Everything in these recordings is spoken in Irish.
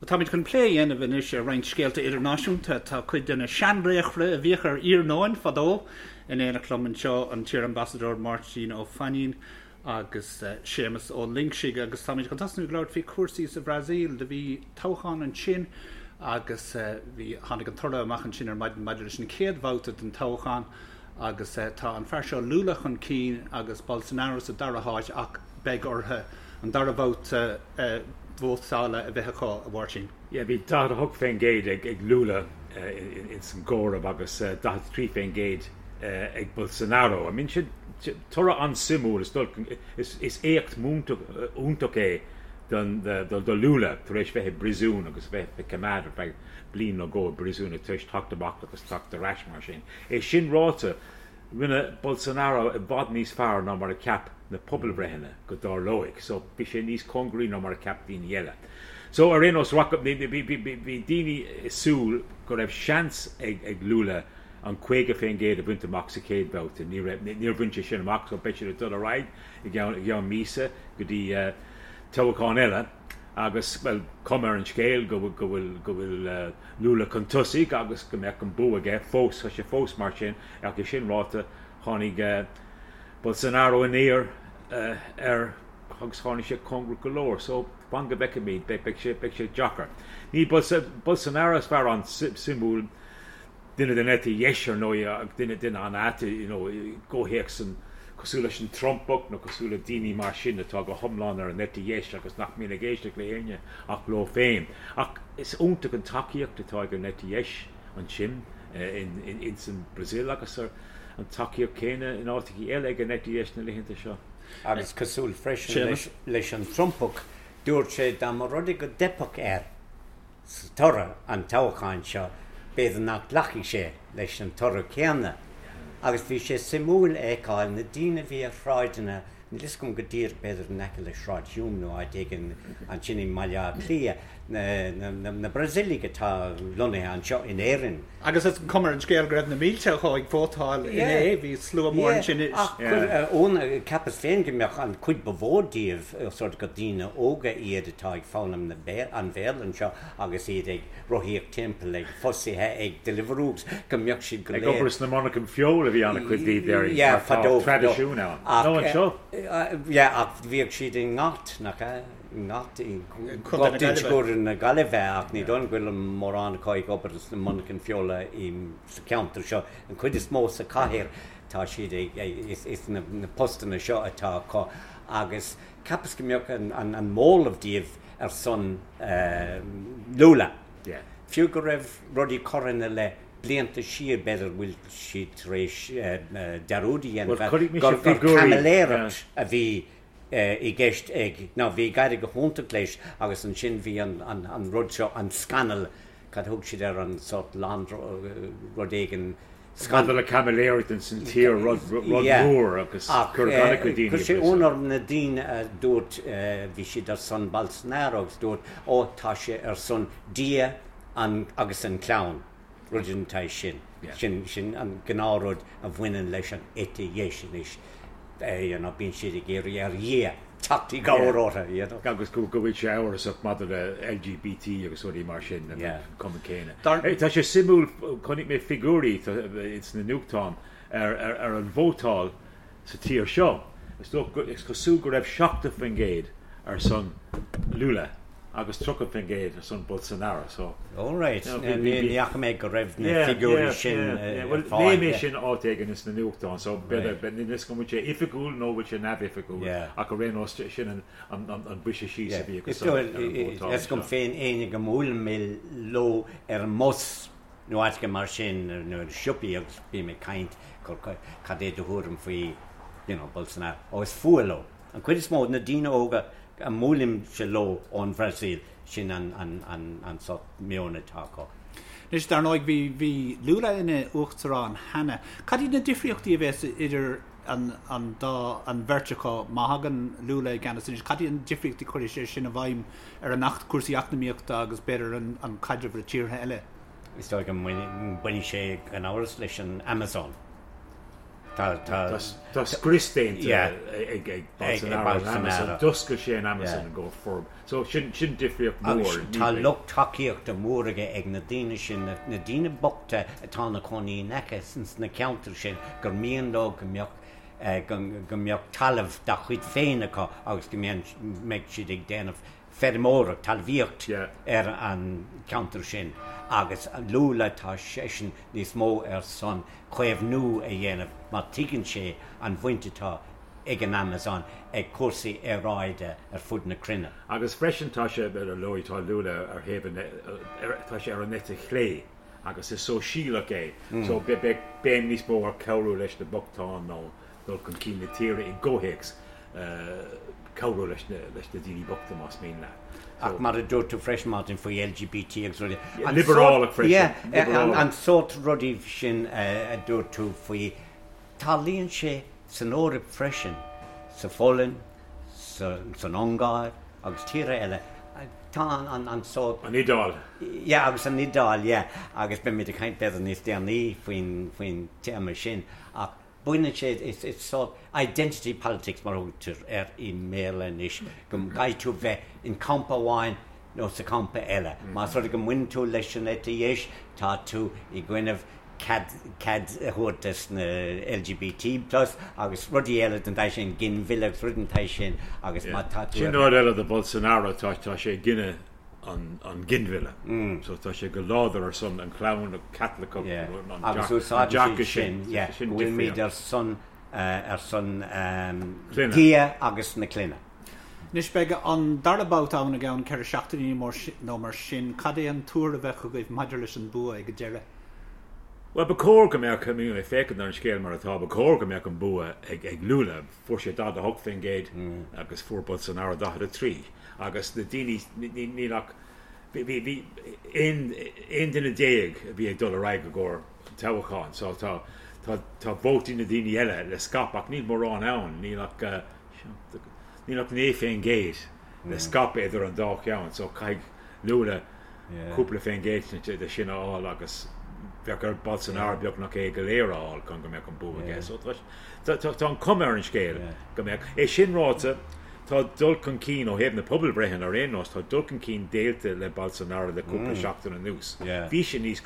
Táimid chun plé a dhéanamh anois ar roinnt scéalta idirnáisiúnta. Tá cuid de na seanlaochra a bhíodh ar iarnóin fadó in éineacht liom anseo, an t-iar-ambasadóir Máirtín Ó Fainín agus Séamus Ó Loingsigh agus táimid chun tosnú ag labhairt faoi chúrsaí sa Bhrasaíl. Do bhí toghchán ansin agus bhí, tháinig an toradh amach ansin ar maidin maidir leis an chéad bhabhta den toghchán agus tá an fear seo Lula chun cinn agus Bolsonaro sa dara háit ach beidh orthu an dara babhta vótála a bheith acu, a Mháirtín. Yeah, bhí 48% ag Lula ins an gcomhaireamh agus 43% ag Bolsonaro. I mean, sin toradh an-suimiúil, is éacht iontach é do Lula tar éis bheith i bpríosún agus bheith ag coimeád ar feadh bliain nó dhó i bpríosún tar éis teacht amach agus teacht ar ais mar sin. É sin ráite, Rinne Bolsonaro i bhfad níos fearr ná mar a cheap na pobalbhreitheanna go dtarlóidh. So, bhí sé níos cóngaraí ná mar a cheap daoine eile. So, ar aon nós, bhí daoine ag súil go raibh seans ag Lula an 50% a bhaint amach sa chéad bhabhta. Ní raibh, níor bhain sé sin amach, so beidh siad ag dul ar aghaidh i gceann míosa go dtí toghchán eile. Agus, bhuel, cuma ar an scéal go bhfuil, go bhfuil Lula chun tosaigh agus go mbeadh an bua aige fós, tá sé fós mar sin. Ach é sin ráite, tháinig Bolsonaro aniar air agus tháinig sé cóngarach go leor. So, fan go bhfeicfimid, beidh sé, beidh sé deacair. Ní Bolsonaro is fear an-suimiúil, duine den eite dheis ar ndóigh, ach duine, duine an-ait, you know, i gcomhthéacs an, cosúil leis an Trumpach nó cosúil le daoine mar sin atá go hiomlán ar an eite dheis agus nach mbíonn ag éisteacht le héinne ach leo féin. Ach is iontach an tacaíocht atá ag an eite dheis. ansin ins an Brazil agus an tacaíocht céanna in áiteachaí eile ag an eite dheis na laethanta seo. Agus cosúil freisin leis an Trumpach, dúirt sé dá mba rud é go dteipfeadh air sa toradh an toghcháin seo, b'fhéidir nach nglacfaidh sé leis an toradh céanna. Agus bhí sé suimiúil a fheiceáil na daoine a bhí ar shráideanna, níl fhios agam go díreach, b'fhéidir in aice le Sráid Hume nó áit éigin ansin i mBaile Átha Cliath, na Brasaíligh atá lonnaithe anseo in Éirinn. Agus is cuma ar an scéal go raibh na mílte acu ag vótáil inné, bhí slua mór ansin. Ach cheapas féin go mbeadh an chuid ba mhó díobh sort gur daoine óga iad atá ag foghlaim an Bhéarla anseo agus iad ag rothaíocht timpeall ag fostaithe ag Deliveroo go mbeadh siad go léir. Ag obair sna monarchana feola a bhí an-chuid díobh déarfainn, mar tá traidisiún ann. Nó anseo. Yeah, ach bhíodh siad i nGort, nach ea? I nGort, i Gort Inse na Gaillimhe ach ní dóigh liom go bhfuil mórán acu ag obair sna monarchana feola sa cheantar seo. An chuid is mó sa chathair tá siad ag, is na postanna seo atá acu agus cheapas go mbeadh an móramh díobh ar son Lula. Fiú go raibh rudaí curtha ina leith blianta siar, b'fhéidir go bhfuil siad tar éis dearúd a dhéanamh gur caimiléireacht a bhí i gceist ag, nó bhí ag éirí go hiontach leis agus ansin bhí an rud seo, an scannal, cad a thug siad air, an sórt rud éigin, Scandal le caimiléireacht ins an tír, rud mór agus cuireadh an-chuid daoine i Chuir sé ionadh orm na daoine a dúirt, bhí siad ar son Bolsonaro agus dúirt, ó tá sé ar son Dia agus an clann, rud den tsaghas sin. Sin sin an gnáthrud a bhaineann leis an eite dheis anois, you know, bíonn siad ag iarraidh ar Dhia teacht i gcabhair orthu, you know. Agus go bhfuil sé amhrasach maidir le LGBT agus rudaí mar sin, an cuma céanna. Tá sé suimiúil, chonaic mé figiúirí ins na nuachtáin ar an vótáil sa tír seo. Is cosúil go raibh 70% ar son Lula agus 30% ar son Bolsonaro. So, All right. Ní fhaca mé go raibh na figiúirí sin ar fáil. Léigh mé sin áit éigin ins na nuachtáin, so b'fhéidir, níl a fhios agam an bhfuil sé oifigiúil nó bhfuil sé neamhoifigiúil, ach ar aon nós sin an briseadh síos a bhí acu san ar an vótáil. Tá a fhios agam féin éinne go mbuailim mé leo ar an mbus nó áit éigin mar sin nó i siopaí agus bím ag caint cad é do thuairim faoi you know Bolsonaro, ó is fuath leo. An chuid is mó de na daoine óga a mbuailimse leo ón Bhrasaíl, sin an sórt meon atá acu. Anois, dar ndóigh, bhí, bhí Lula ina uachtarán cheana. Cad iad na difríochtaí a bheas idir an, an dá, an bheirt acu má thagann Lula i gceannas anois? Cad iad na difríochtaí a chuirfidh sé sin i bhfeidhm ar an acht, cúrsaí eacnamaíochta agus b'fhéidir an, an caidreamh le tíortha eile? Is dóigh go mbainfidh sé gan amhras leis an Amazon. Tá, tá. Tá scrios déanta ag Bolsonaro ar an Amazon, d'oscail sé an Amazon i gcomhair forb. So sin difríocht mhór. Agus tá lucht tacaíochta mór aige ag na daoine sin, na daoine bochta atá ina cónaí in aice ins na ceantair sin gur mian leo go mbeadh go mbeadh talamh dá chuid féin acu agus go mbeadh siad ag déanamh feirmeoireacht, talmhaíocht ar an cheantar sin agus Lula tá seisean níos mó ar son caomhnú a dhéanamh mar tuigeann sé an bhaint atá ag an Amazon ag cúrsaí aeráide ar fud na cruinne. Agus freisin tá sé, ar ndóigh, tá Lula ar thaobh an, tá sé ar an eite chlé agus is sóisialach é so beidh béim níos mó ar cabhrú leis na bochtáin nó dul chun cinn na tíre i gcomhthéacs cabhrú leis na daoine bochta más mian leat. Ach mar a dúirt tú freisin Martin faoi LGBT agus rudaí. Liobrálach freisin. Yeah, an sórt rudaí sin a dúirt tú faoi, tarlaíonn sé san Eoraip freisin, sa Pholainn, san Ungáir agus tíortha eile, tá an sórt. An Iodáil. Yeah, agus an Iodáil, yeah, agus beimid ag caint b'fhéidir níos déanaí faoin téama sin ach Baineann sé, is sórt identity politics mar a thugtar air i mBéarla anois, go gcaithfidh tú bheith in campa amháin nó sa champa eile. Más rud é go mbaineann tú leis an eite dheis, tá tú i gcoinnibh cead cead a thabhairt dos na LGBT plus agus rudaí eile den tsaghas sin, ginmhilleadh agus rudaí den tsaghas sin agus má tá tú Sin rud eile do Bolsonaro, tá tá sé i gcoinne an ginmhilleadh. So tá sé go láidir ar son an chlann Caitliceach, an Agus úsáideann siad sin, yeah, go bhfuilimid ar son, ar son Dia agus na clainne. Anois beidh an dara babhta ann i gceann 4 seachtainí nó mar sin. Cad é an tuar a bheadh agaibh maidir leis an bua ag an deireadh? Bhuel, ba chóir go mbeadh, I mean, ag féachaint ar an scéal mar atá, ba chóir go mbeadh an bua ag Lula. Fuair sé 48% agus fuair Bolsonaro 43. Agus na daoine, níl ach, bhí, bhí 11 duine a bhí ag dul ar aghaidh i gcomhair an toghcháin so tá, tá, tá vótaí na daoine eile le scaipeadh ach níl mórán ann, níl ach, níl ach 9% le scaipeadh idir an dá cheann so caithfidh Lula cúpla faoin gcéad de sin a fháil agus bheadh ar Bolsonaro beagnach é go léir a fháil chun go mbeadh an bua aige. So tá an cuma ar an scéal go mbeadh. É sin ráite, tá dul chun cinn ó thaobh na pobalbhreitheanna ar aon nós, tá dul chun cinn déanta le Bolsonaro le cúpla seachtain anuas. Bhí sé níos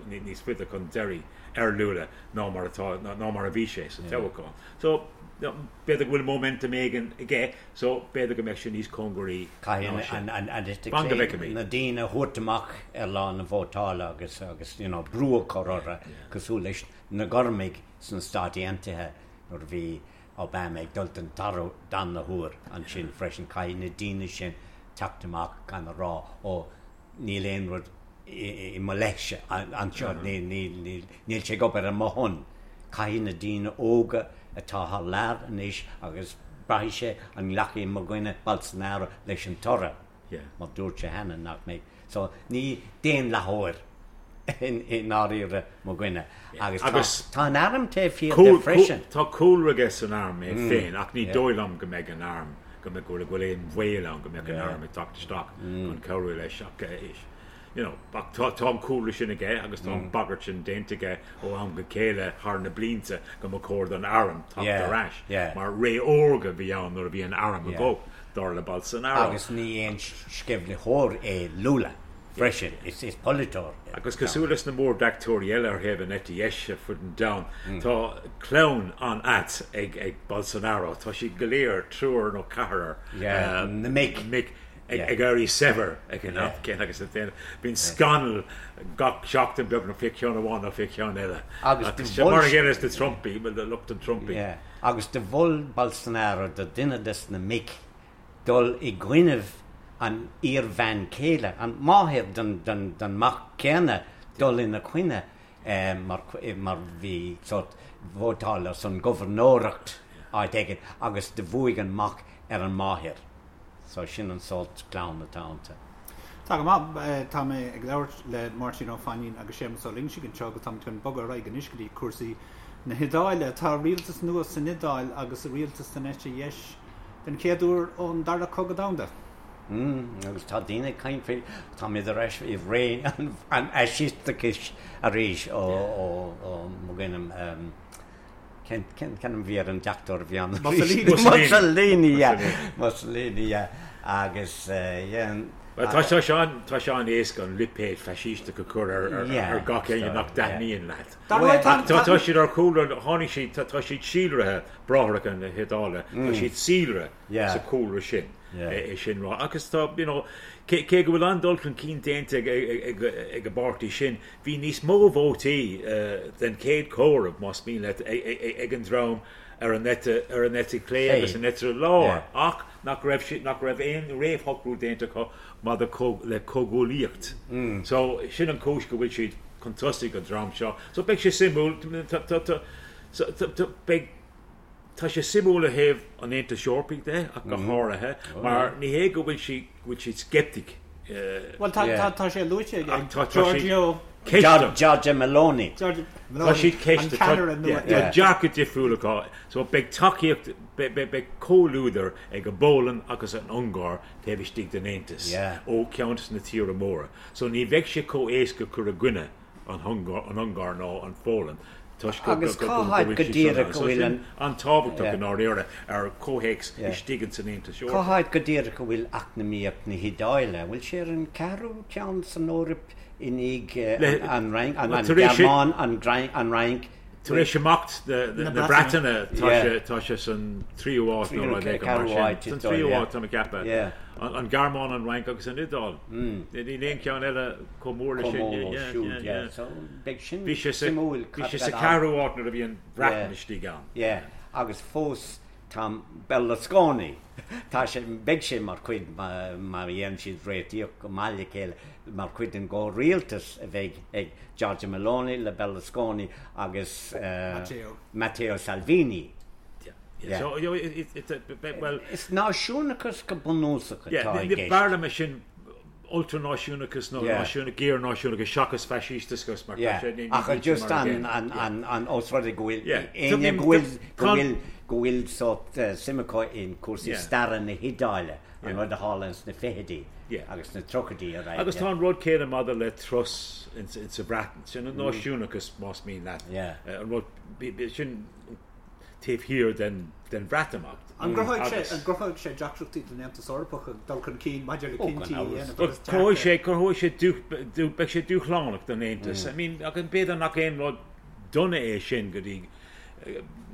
níos faide chun deiridh ar Lula ná mar atá ná mar a bhí sé sa toghchán. So b'fhéidir go bhfuil momentum éigin aige So, b'fhéidir go mbeadh sé níos cóngaraí ná sin. Caithfidh an eite chlé na daoine a thabhairt amach ar lá na vótála agus agus you know brú a chur orthu cosúil leis na Gormaigh sna Stáit Aontaithe nuair a bhí Obama ag dul den darna huair ansin freisin. Caithfidh na daoine sin teacht amach gan a rá ó níl aon rud i mo leithse anseo, níl sé ag obair ar mo shon. Caithfidh na daoine óga atá thar lear anois agus braithfidh sé an nglacfaidh mo dhuine Bolsonaro leis an toradh, mar dúirt sé cheana nach mbeidh. So ní daonlathóir i ndáiríre mo dhuine. Agus tá an arm taobh thiar de freisin. Tá cúlra aige san arm é féin ach ní dóigh liom go mbeidh an arm, go mbeidh, go bhfuil aon bhaol ann go mbeadh an arm ag teacht isteach chun cabhrú leis ach you know ach tá tá an cúlra sin aige agus tá an bagairt sin déanta aige ó am go chéile thar na blianta go mba chóir don arm teacht ar ais mar ré órga a bhí ann nuair a bhí an arm i gcumhacht dar le Bolsonaro. Agus ní aon sceimhlitheoir é Lula freisin, is polaiteoir é. Agus cosúil leis na mór-deachtóirí eile ar thaobh an eite dheis ar fud an domhain, tá clann an-ait ag Bolsonaro. Tá siad go léir, triúr nó ceathrar, na mic, ag éirí saibhir ag an am céanna agus bíonn scannal gach seachtain beagnach fé cheann amháin nó fé cheann eile. Agus mar a chéile leis na Trumpaí, lucht an Trumpaí. Agus do mhol Bolsonaro do duine des na mic dul i gcoinnibh an iar-bhean chéile, an máthair don mac céanna, dul ina choinne mar mar bhí sórt vótáil ar son gobharnóireacht áit éigin agus do bhuaigh an mac ar an máthair. So sin an sórt clann atá iontu. Tá go maith. Tá mé ag labhairt le Máirtín Ó Fainín agus Séamus Ó Loingsigh anseo agus táimid chun bogadh ar aghaidh anois go dtí cúrsaí na hIodáile. Tá rialtas nua san Iodáil agus rialtas den eite dheis den chéad uair ón Dara Cogadh Domhanda. Mm, agus tá daoine ag caint faoi, táimid ar ais i ré an fhaisisteachais arís ó, ó, ó, mo dhuine, Cén ainm a bhí ar an deachtóir a bhí ann? Mussolini. Mussolini, yeah. Mussolini, yeah. Agus, yeah. Bhuel, tá sé an, tá sé an-éasca an lipéad faisísteach a chur ar, ar, ar gach éinne nach dtaitníonn leat. Dar ndóigh, tá, tá, tá siad ar chúlra, tháinig siad, tá, tá siad síolraithe, Bráithreacha na hIodáile, tá siad síolraithe sa chúlra sin, é sin rá. Agus tá, you know, cé, cé go bhfuil an-dul chun cinn déanta ag, ag, ag, ag an bpáirtí sin, Bhí níos mó vótaí den chéad chomhaireamh, más mian leat, ag an dream ar an eite ar an eite chlé agus an eite lár ach nach raibh siad nach raibh aon réamhshocrú déanta acu maidir le comhghuaillíocht. So sin an chúis go bhfuil siad chun tosaigh an dream seo. So beidh sé suimiúil beidh Tá sé suimiúil ó thaobh an Aontais Eorpaigh de ach go háirithe mar ní hé go bhfuil siad go bhfuil siad sceptic. Bhuel tá tá sé luaite ag Giorgio Giorgia Meloni. Tá siad ceiste tá dearcadh difriúil acu so beidh tacaíocht beidh comhluadar ag an bPólainn agus an Ungáir taobh istigh den Aontas ó cheann de na tíortha móra so ní bheidh sé chomh éasca cur i gcoinne an Ungáir nó an Pholainn toisc go Agus cá háit bhfuil go siad díreach san go bhfuil an. an-tábhachtach i ndáiríre ar chomhthéacs istigh ins an Aontas Cá Eorpach. háit go díreach a bhfuil eacnamaíocht na hIodáile? An bhfuil sé ar an ceathrú ceann san Eoraip i ndiaidh an Fhrainc, an Ghearmáin, an Fhrainc, Tar éis imeacht na Breataine tá sé san tríú háit nó rud éigin mar sin. San tríú háit tá mé ag ceapadh. An Ghearmáin, an Fhrainc agus an Iodáil. Níl aon cheann eile chomh mór leis sin. Bheadh Bhí sé sa bhí sé sa ceathrú háit nuair a bhí an Bhreatain istigh ann. Agus fós tá Berlusconi, tá sé, beidh sé mar chuid, má dhéanann siad réitíocht go maith le chéile, mar chuid den gcomhrialtas a bheidh ag Giorgia Meloni le Berlusconi agus Matteo Salvini. Yeah. So, you know, it, it, it, well, Is náisiúnachas go bunúsach atá i gceist. B'fhearr liom é sin ultranáisiúnachas nó géarnáisiúnachas seachas faisísteachas mar tá sé ní Ach just an an an os rud é go bhfuil éinne go bhfuil go bhfuil go bhfuil sórt suim acu in cúrsaí staire na hIodáile an rud a tharla ins na fichidí agus na tríochaidí ar aghaidh. Agus tá an rud céanna maidir le Truss insa Bhreatain, sin an náisiúnachas más mian leat, an rud sin taobh thiar den Bhreatimeacht. An gcruthóidh sé an gcruthóidh sé deacrachtaí don Aontas Eorpach ag dul chun cinn maidir le cinntí a dhéanamh agus Cruthóidh sé cruthóidh sé beidh sé dúshlánach don Aontas. I mean ach b'fhéidir nach aon rud dona é sin go dtí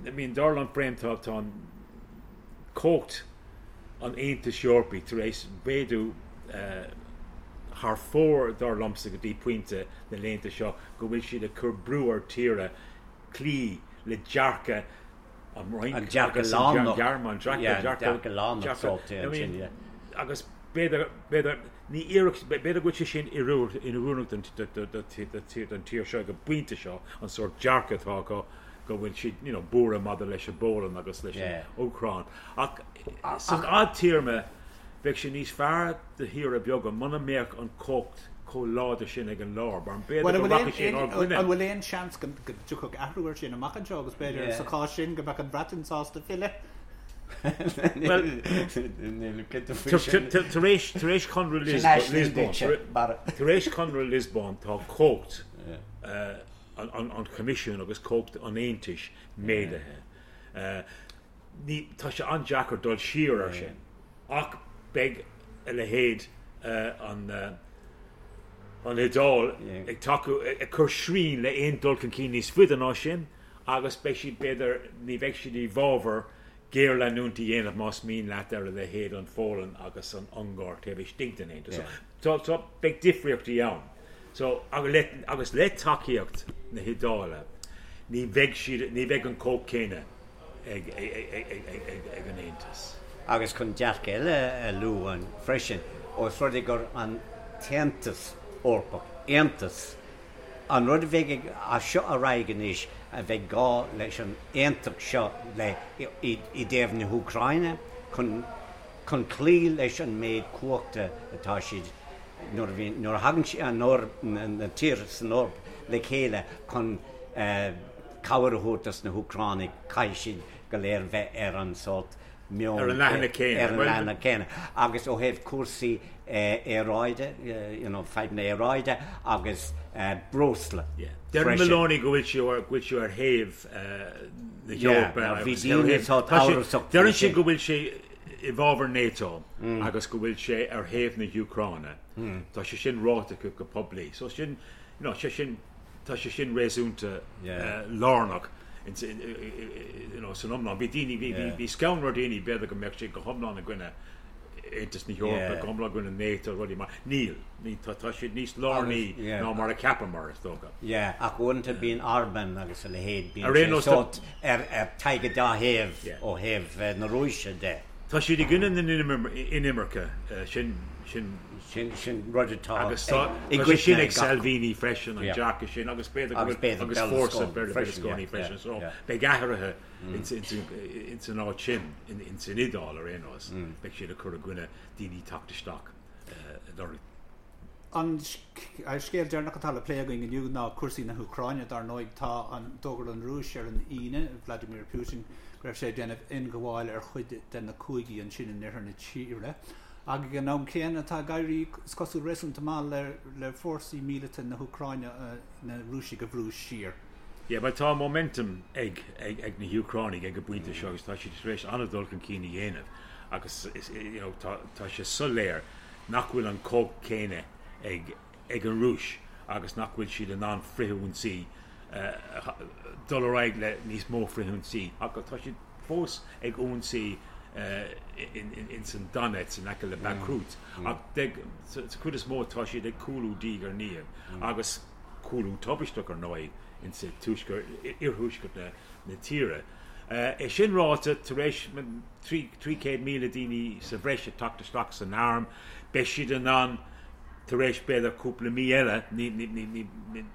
I mean dar liom féin tá tá an cumhacht an Aontais Eorpaigh tar éis mhéadú thar fóir dar liomsa go dtí pointe na laethanta seo go bhfuil siad ag cur brú ar tíortha cloí le dearcadh an Fhrainc An dearcadh agus an lárnach. Ghearmáin, dearcadh, Yeah, dearcadh, dearcadh lárnach dearcadh, sórt I ansin, mean, yeah. agus b'fhéidir, b'fhéidir, ní iarracht, b'fhéidir go bhfuil sé sin inoiriúnach don, do, do, do, do, do, don tír seo ag an bpointe seo, an sórt dearcadh atá acu go bhfuil siad, you know, buartha maidir leis an bPólainn agus leis an Yeah. Úcráin. Ach san fhadtéarma, Bheadh sé níos fearr do thíortha beaga muna mbeadh an chumhacht chomh láidir sin ag an lár, mar b'fhéidir go rachadh sé inár gcoinne. An bhfuil aon seans go dtiocfadh athrú air sin amach anseo agus b'fhéidir sa chás sin go mbeadh an Bhreatain sásta filleadh? Bhuel, tar éis Chonradh Liospóin tá cumhacht an Choimisiúin agus cumhacht an Aontais méadaithe. Ní, tá sé an-deacair dul siar ar sin ach beidh a leithéid an an Iodáil ag tacú, ag cur srian le aon dul chun cinn níos faide ná sin agus beidh siad, b'fhéidir, ní bheidh siad i bhfabhar géarleanúint a dhéanamh más mian leat ar a leithéid an Pholainn agus an Ungáir taobh istigh den Aontas. So, so beidh difríochtaí ann. So, agus le tacaíocht na hIodáile ní bheidh siad, ní bheidh an chumhacht céanna ag an Aontas. Agus chun dearcadh eile a lua freisin, ós rud é gur an tAontas Eorpach, Aontas, an rud a bheidh ag, as seo ar aghaidh anois, a bheidh gá leis an aontacht seo le, i dtaobh na hÚcráine, chun, chun cloí leis an méid cumhachta atá siad, nuair a bhíonn, nuair a thagann siad, an Eoraip, na tíortha san Eoraip le chéile chun cabhair a thabhairt dos na hÚcránaigh, caithfidh siad go léir bheith ar an sórt. meon Ar an leathanach céanna. Ar an leathanach céanna. Agus ó thaobh cúrsaí aeráide, you know, fadhbanna aeráide agus breosla Deireann Meloni go bhfuil sí go bhfuil sí ar thaobh na hEorpa agus bhí daoine sórt amhrasach faoi Deireann sí go bhfuil sé i bhfabhar NATO agus go bhfuil sé ar thaobh na hÚcráine. Tá sé sin ráite acu go poiblí. So sin, you know, sé sin tá sé sin réasúnta lárnach you know, san iomlán. Bhí daoine, bhí, bhí, bhí scanradh ar daoine b'fhéidir go mbeadh sé go hiomlán i gcoinne Aontas na hEorpa, go hiomlán i gcoinne NATO, rudaí mar. Níl, ní, tá, tá siad níos lárnaí ná mar a cheapamar, is dócha. Yeah, ach uaireanta bíonn Orban agus a leithéid, bíonn sé sórt ar, ar tagtha dá thaobh ó thaobh na Rúise de. Tá siad i gcoinne na n-inimirce, sin, sin. Sin, sin rud atá Agus tá, i tá sé sin ag Salvini freisin, an dearcadh sin, agus b'fhéidir go bhfuil, agus fórsa Berlusconi freisin, so beidh athruithe ins, ins, ins an áit sin, ins an Iodáil ar aon nós, beidh siad ag cur i gcoinne daoine teacht isteach lorg. An scéal deireanach atá le plé againn inniu ná cúrsaí na hÚcráine. Dar ndóigh, tá an, d'fhógair an Rúis ar an Aoine, Vladimir Putin, go raibh sé ag déanamh ionghabháil ar chuid de na cúigí ansin in oirthear na tíre. Ach ag an am céanna, tá ag éirí, is cosúil, réasúnta maith le le fórsaí míleata na hÚcráine na Rúisigh a bhrú siar. Yeah, bhuel tá momentum ag ag ag na hÚcránaigh ag an bpointe seo agus tá siad tar éis an-dul chun cinn a dhéanamh agus is you know tá tá sé soiléir nach bhfuil an chumhacht céanna ag ag an Rúis agus nach bhfuil siad in ann frithionsaí dul ar aghaidh le níos mó frithionsaí ach tá siad fós ag ionsaí ins an Donetsk in aice le Bakhmut ach sa chuid is mó tá siad ag cúlú diaidh ar ndiaidh agus cúlú tubaisteach ar ndóigh ins an tuaisceart, iarthuaisceart na tíre. É sin ráite, tar éis 300,000 daoine sa bhreis ag teacht isteach san arm, beidh siad in ann tar éis b'fhéidir cúpla mí eile, ní,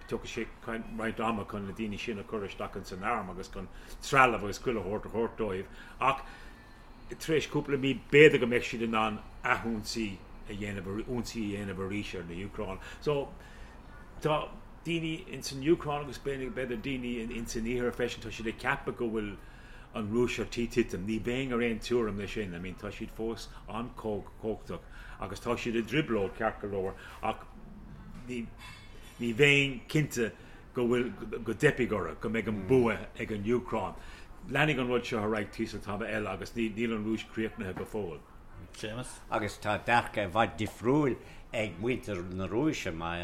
tiocfaidh sé roinnt ama chun na daoine sin a chur isteach ins an arm agus chun trealamh agus chuile shórt a thabhairt dóibh ach tar éis cúpla mí b'fhéidir go mbeidh siad in ann athionsaí a dhéanamh, ionsaí a dhéanamh arís ar na Úcráin. So tá daoine ins an Úcráin agus b'fhéidir daoine ins an Iarthar freisin, tá siad ag ceapadh go bhfuil an Rúis ar tí titim. Ní bheinn ar aon tuairim leis sin. I mean tá siad fós an-chumhachtach agus tá siad i dtrioblóid ceart go leor ach ní ní bheinn cinnte go bhfuil, go dteipfidh orthu, go mbeidh an bua ag an Úcráin. Leanfaidh an rud seo ar aghaidh tíos an t-am eile agus níl an Rúis críochnaithe go fóill. Séamus. Agus tá dearcadh i bhfad difriúil ag muintir na Rúise. Má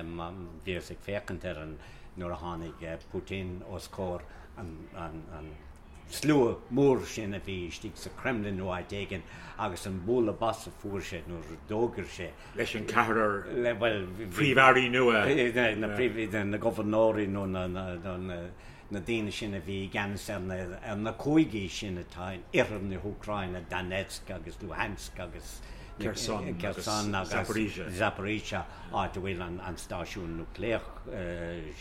bhíos ag féachaint ar an, nuair a tháinig Putin os comhair an, an, slua mór sin a bhí istigh sa Kremlin nó áit éigin agus an bualadh bos a fuair sé nuair a d'fhógair sé. Leis an ceathrar príomh-airí nua. Na príomh, na gobharnóirí nó na daoine sin a bhí i gceannas ar na cúigí sin atá in oirthear na hÚcráine, Donetsk agus Luhansk agus Kherson agus Zaporizhzhia. Zaporizhzhia, áit a bhfuil an stáisiún núicléach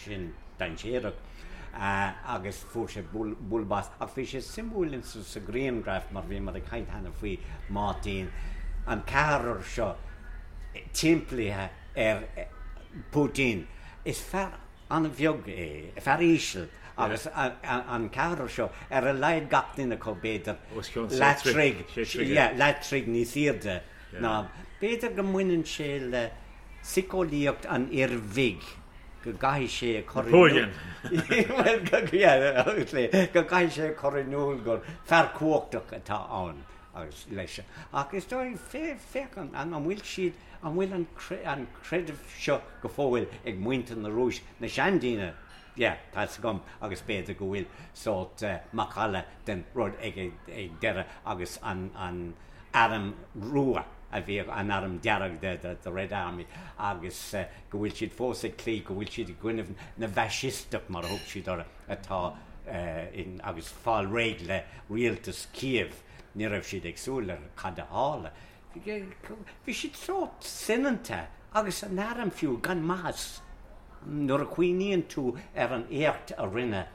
sin dainséarach. agus fuair sé bualadh bos. Ach bhí sé suimiúil in sa ghrianghraf mar bhíomar ag caint cheana faoi Máirtín, an ceathrar seo timpeallaithe ar Putin. Is fear an-bheag é, fear íseal agus an ceathrar seo ar a laghad gach duine acu b'fhéidir leath troigh, yeah, leath troigh níos airde ná. B'fhéidir go mbaineann sé le síceolaíocht an fhir bhig. go gcaithfidh sé a chur in iúl go gcaithfidh sé a chur in iúl gur fear cumhachtach atá ann agus leis. Ach is dóigh, féach an bhfuil siad, an bhfuil an creideamh seo go fóill ag muintir na Rúise, na seandaoine, yeah, tá 'fhios agam, agus b'fhéidir go bhfuil sórt macalla den rud ag deireadh agus an Arm Rua a bhíodh, an Arm Dearg, the Red Army, agus go bhfuil siad fós ag cloí, go bhfuil siad i gcoinnibh na bhfaisisteach, mar a thug siad orthu, atá in, agus fáil réidh le rialtas Kiev. Ní raibh siad ag súil le cad a tharla. Bhí siad sórt soineanta, agus an arm fiú, gan maitheas. Nuair a chuimhníonn tú ar an éacht a rinne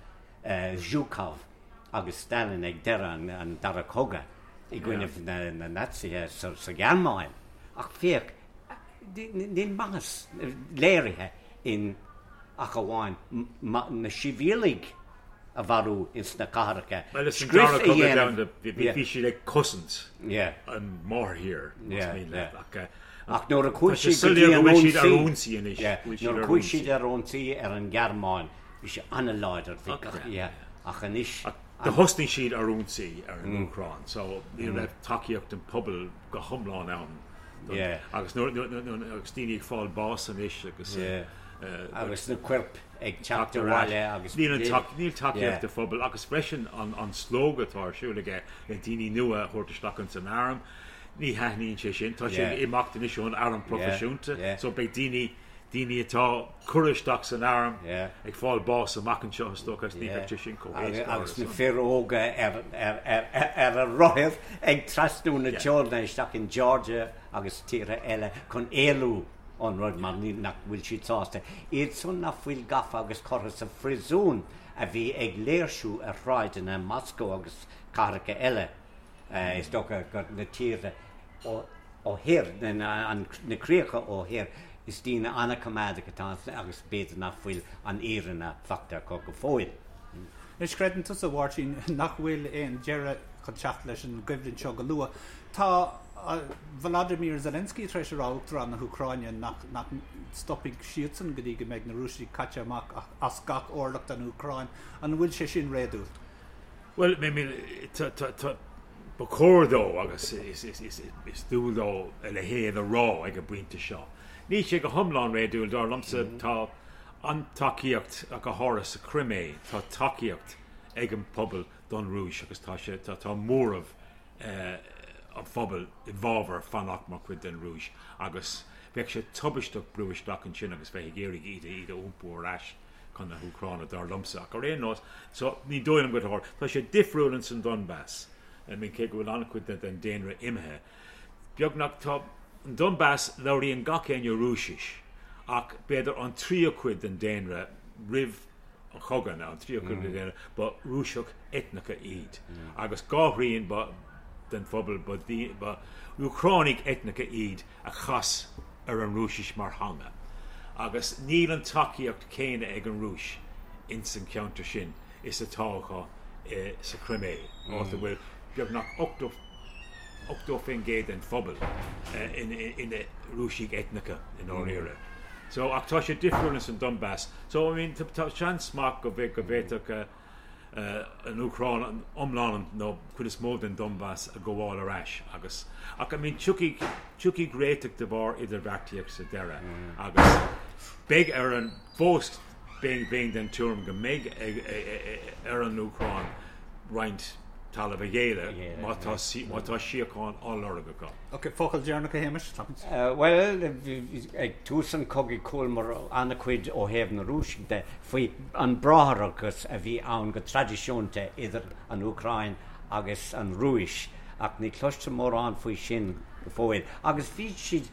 Zhukov agus Stalin ag deireadh an Dara Cogadh i gcoinnibh na Naitsithe sa Ghearmáin, ach féach, Níl maitheas léirithe in ach amháin na sibhialaigh. a mharú ins na cathracha. Bhuel, is an Dara Cogadh Domhanda, bhí siad ag cosaint an máthairthír, más mian leat, ach Ach nuair a chuaigh siad go dtí an ionsaí, nuair a chuaigh siad ar ionsaí ar an nGearmáin, bhí sé an-láidir, bhí gach, yeah, ach anois. Do thosnaigh siad ar ionsaí ar an Úcráin, so ní raibh tacaíocht an phobail go hiomlán ann. Agus nuair, agus daoine ag fáil bás anois agus. Agus na coirp ag teacht abhaile agus. Níl tacaíocht an phobail agus freisin an slógadh atá ar siúl aige le daoine nua a thabhairt isteach ins an arm. Ní thaitníonn sé sin. Tá sé ag imeacht anois ón arm proifisiúnta so beidh daoine, daoine atá curtha isteach san arm ag fáil bás amach anseo is dócha agus ní bheidh sé sin chomh héasca. Agus na fir óga ar ar a rothair ag trasnú na teorann isteach in Georgia agus tíortha eile chun éalú ón rud mar nach bhfuil siad sásta. Iad san nach bhfuil gafa agus curtha sa phríosún a bhí ag léirsiú ar shráideanna Moscow agus cathracha eile. Is dócha gur na tíortha ó thoir, na críocha ó thoir, is daoine an-choimeádach atá ann agus b'fhéidir nach bhfuil an fhírinne faighte acu go fóill. Anois, creideann tusa, a Mháirtín, nach bhfuil aon deireadh chun teacht leis an gcoimhlint seo go luath. Tá Volodymyr Zelensky tar éis a rá, Uachtarán na hÚcráine, nach nach stopfaidh siadsan go dtí go mbeidh na Rúisigh caite amach as gach orlach den Úcráin. An bhfuil sé sin réadúil? Bhuel, I mean, ba chóir dó agus is dual dó a leithéid a rá ag an bpointe seo. Níl sé go hiomlán réadúil, dar liomsa. Tá an-tacaíocht, go háirithe sa Chrimé, tá tacaíocht ag an bpobal don Rúis agus tá sé, tá móramh an phobail i bhfabhar fanacht mar chuid den Rúis agus bheadh sé tubaisteach brú isteach ansin agus bheith ag iarraidh iad a iompú ar ais. chun na hÚcráine, dar liomsa. Ach ar aon nós, so, ní dóigh liom go dtarlóidh. Tá sé difriúil ins an Donbas. I mean, cé go bhfuil an-chuid den daonra imithe, beagnach, tá, an Donbas, labhraíonn gach éinne Rúisis, ach b'fhéidir an tríú cuid den daonra roimh an chogadh, nó an tríú cuid den daonra, ba Rúiseach eitneacha iad. Agus dhá thrian ba, den phobal, ba, ba Úcránaigh eitneacha iad a chas ar an Rúisis mar theanga agus níl an tacaíocht chéanna ag an Rúis ins an cheantar sin is atá acu sa Chrimé, áit a bhfuil beagnach 80% den phobal ina Rúisigh eitneacha i ndáiríre. So, ach tá sé difriúil ins an Donbas. So, I mean, tá seans maith go bhféadfadh an Úcráin an iomlán nó cuid is mó den Donbas a ghabháil ar ais agus ach I mean tiocfaidh tiocfaidh réiteach de bharr idirbheartaíocht sa deireadh agus beidh ar an fós bheinn bheinn den tuairim go mbeidh ag ar an Úcráin roinnt talamh a ghéilleadh má tá má tá síocháin á lorg acu. Ok, focal deireanach a Shéamais? Bhuel, ag tús an chogaidh chualamar an-chuid ó thaobh na Rúiseach de faoi an bráithreachas a bhí ann go traidisiúnta idir an Úcráin agus an Rúis, ach ní chloistear mórán faoi sin go fóill. Agus bhí siad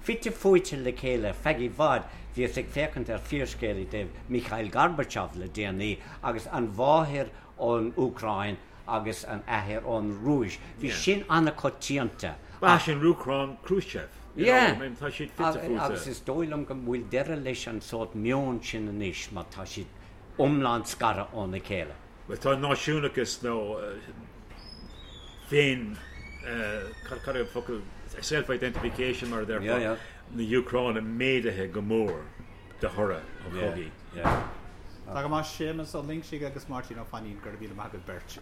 fite fuaite le chéile feadh i bhfad. Bhíos ag féachaint ar fíorscéal i dtaobh Mikhail Gorbachev le déanaí agus an mháthair ón Úcráin agus an athair ón Rúis. Bhí sin an-choitianta. Ba sin Úcráin Khrushchev. Yeah. Tá siad fite fuaite. Agus is dóigh liom go bhfuil deireadh leis an sórt meon sin anois mar tá siad iomlán scartha óna chéile. Bhuel tá náisiúnachas nó féin, cad é an focal, self-identification mar a déarfá, na hÚcráine méadaithe go mór. de thoradh an chogaidh. Tá go maith, Séamus Ó Loingsigh agus Máirtín Ó Fainín, go raibh míle maith agaibh beirt.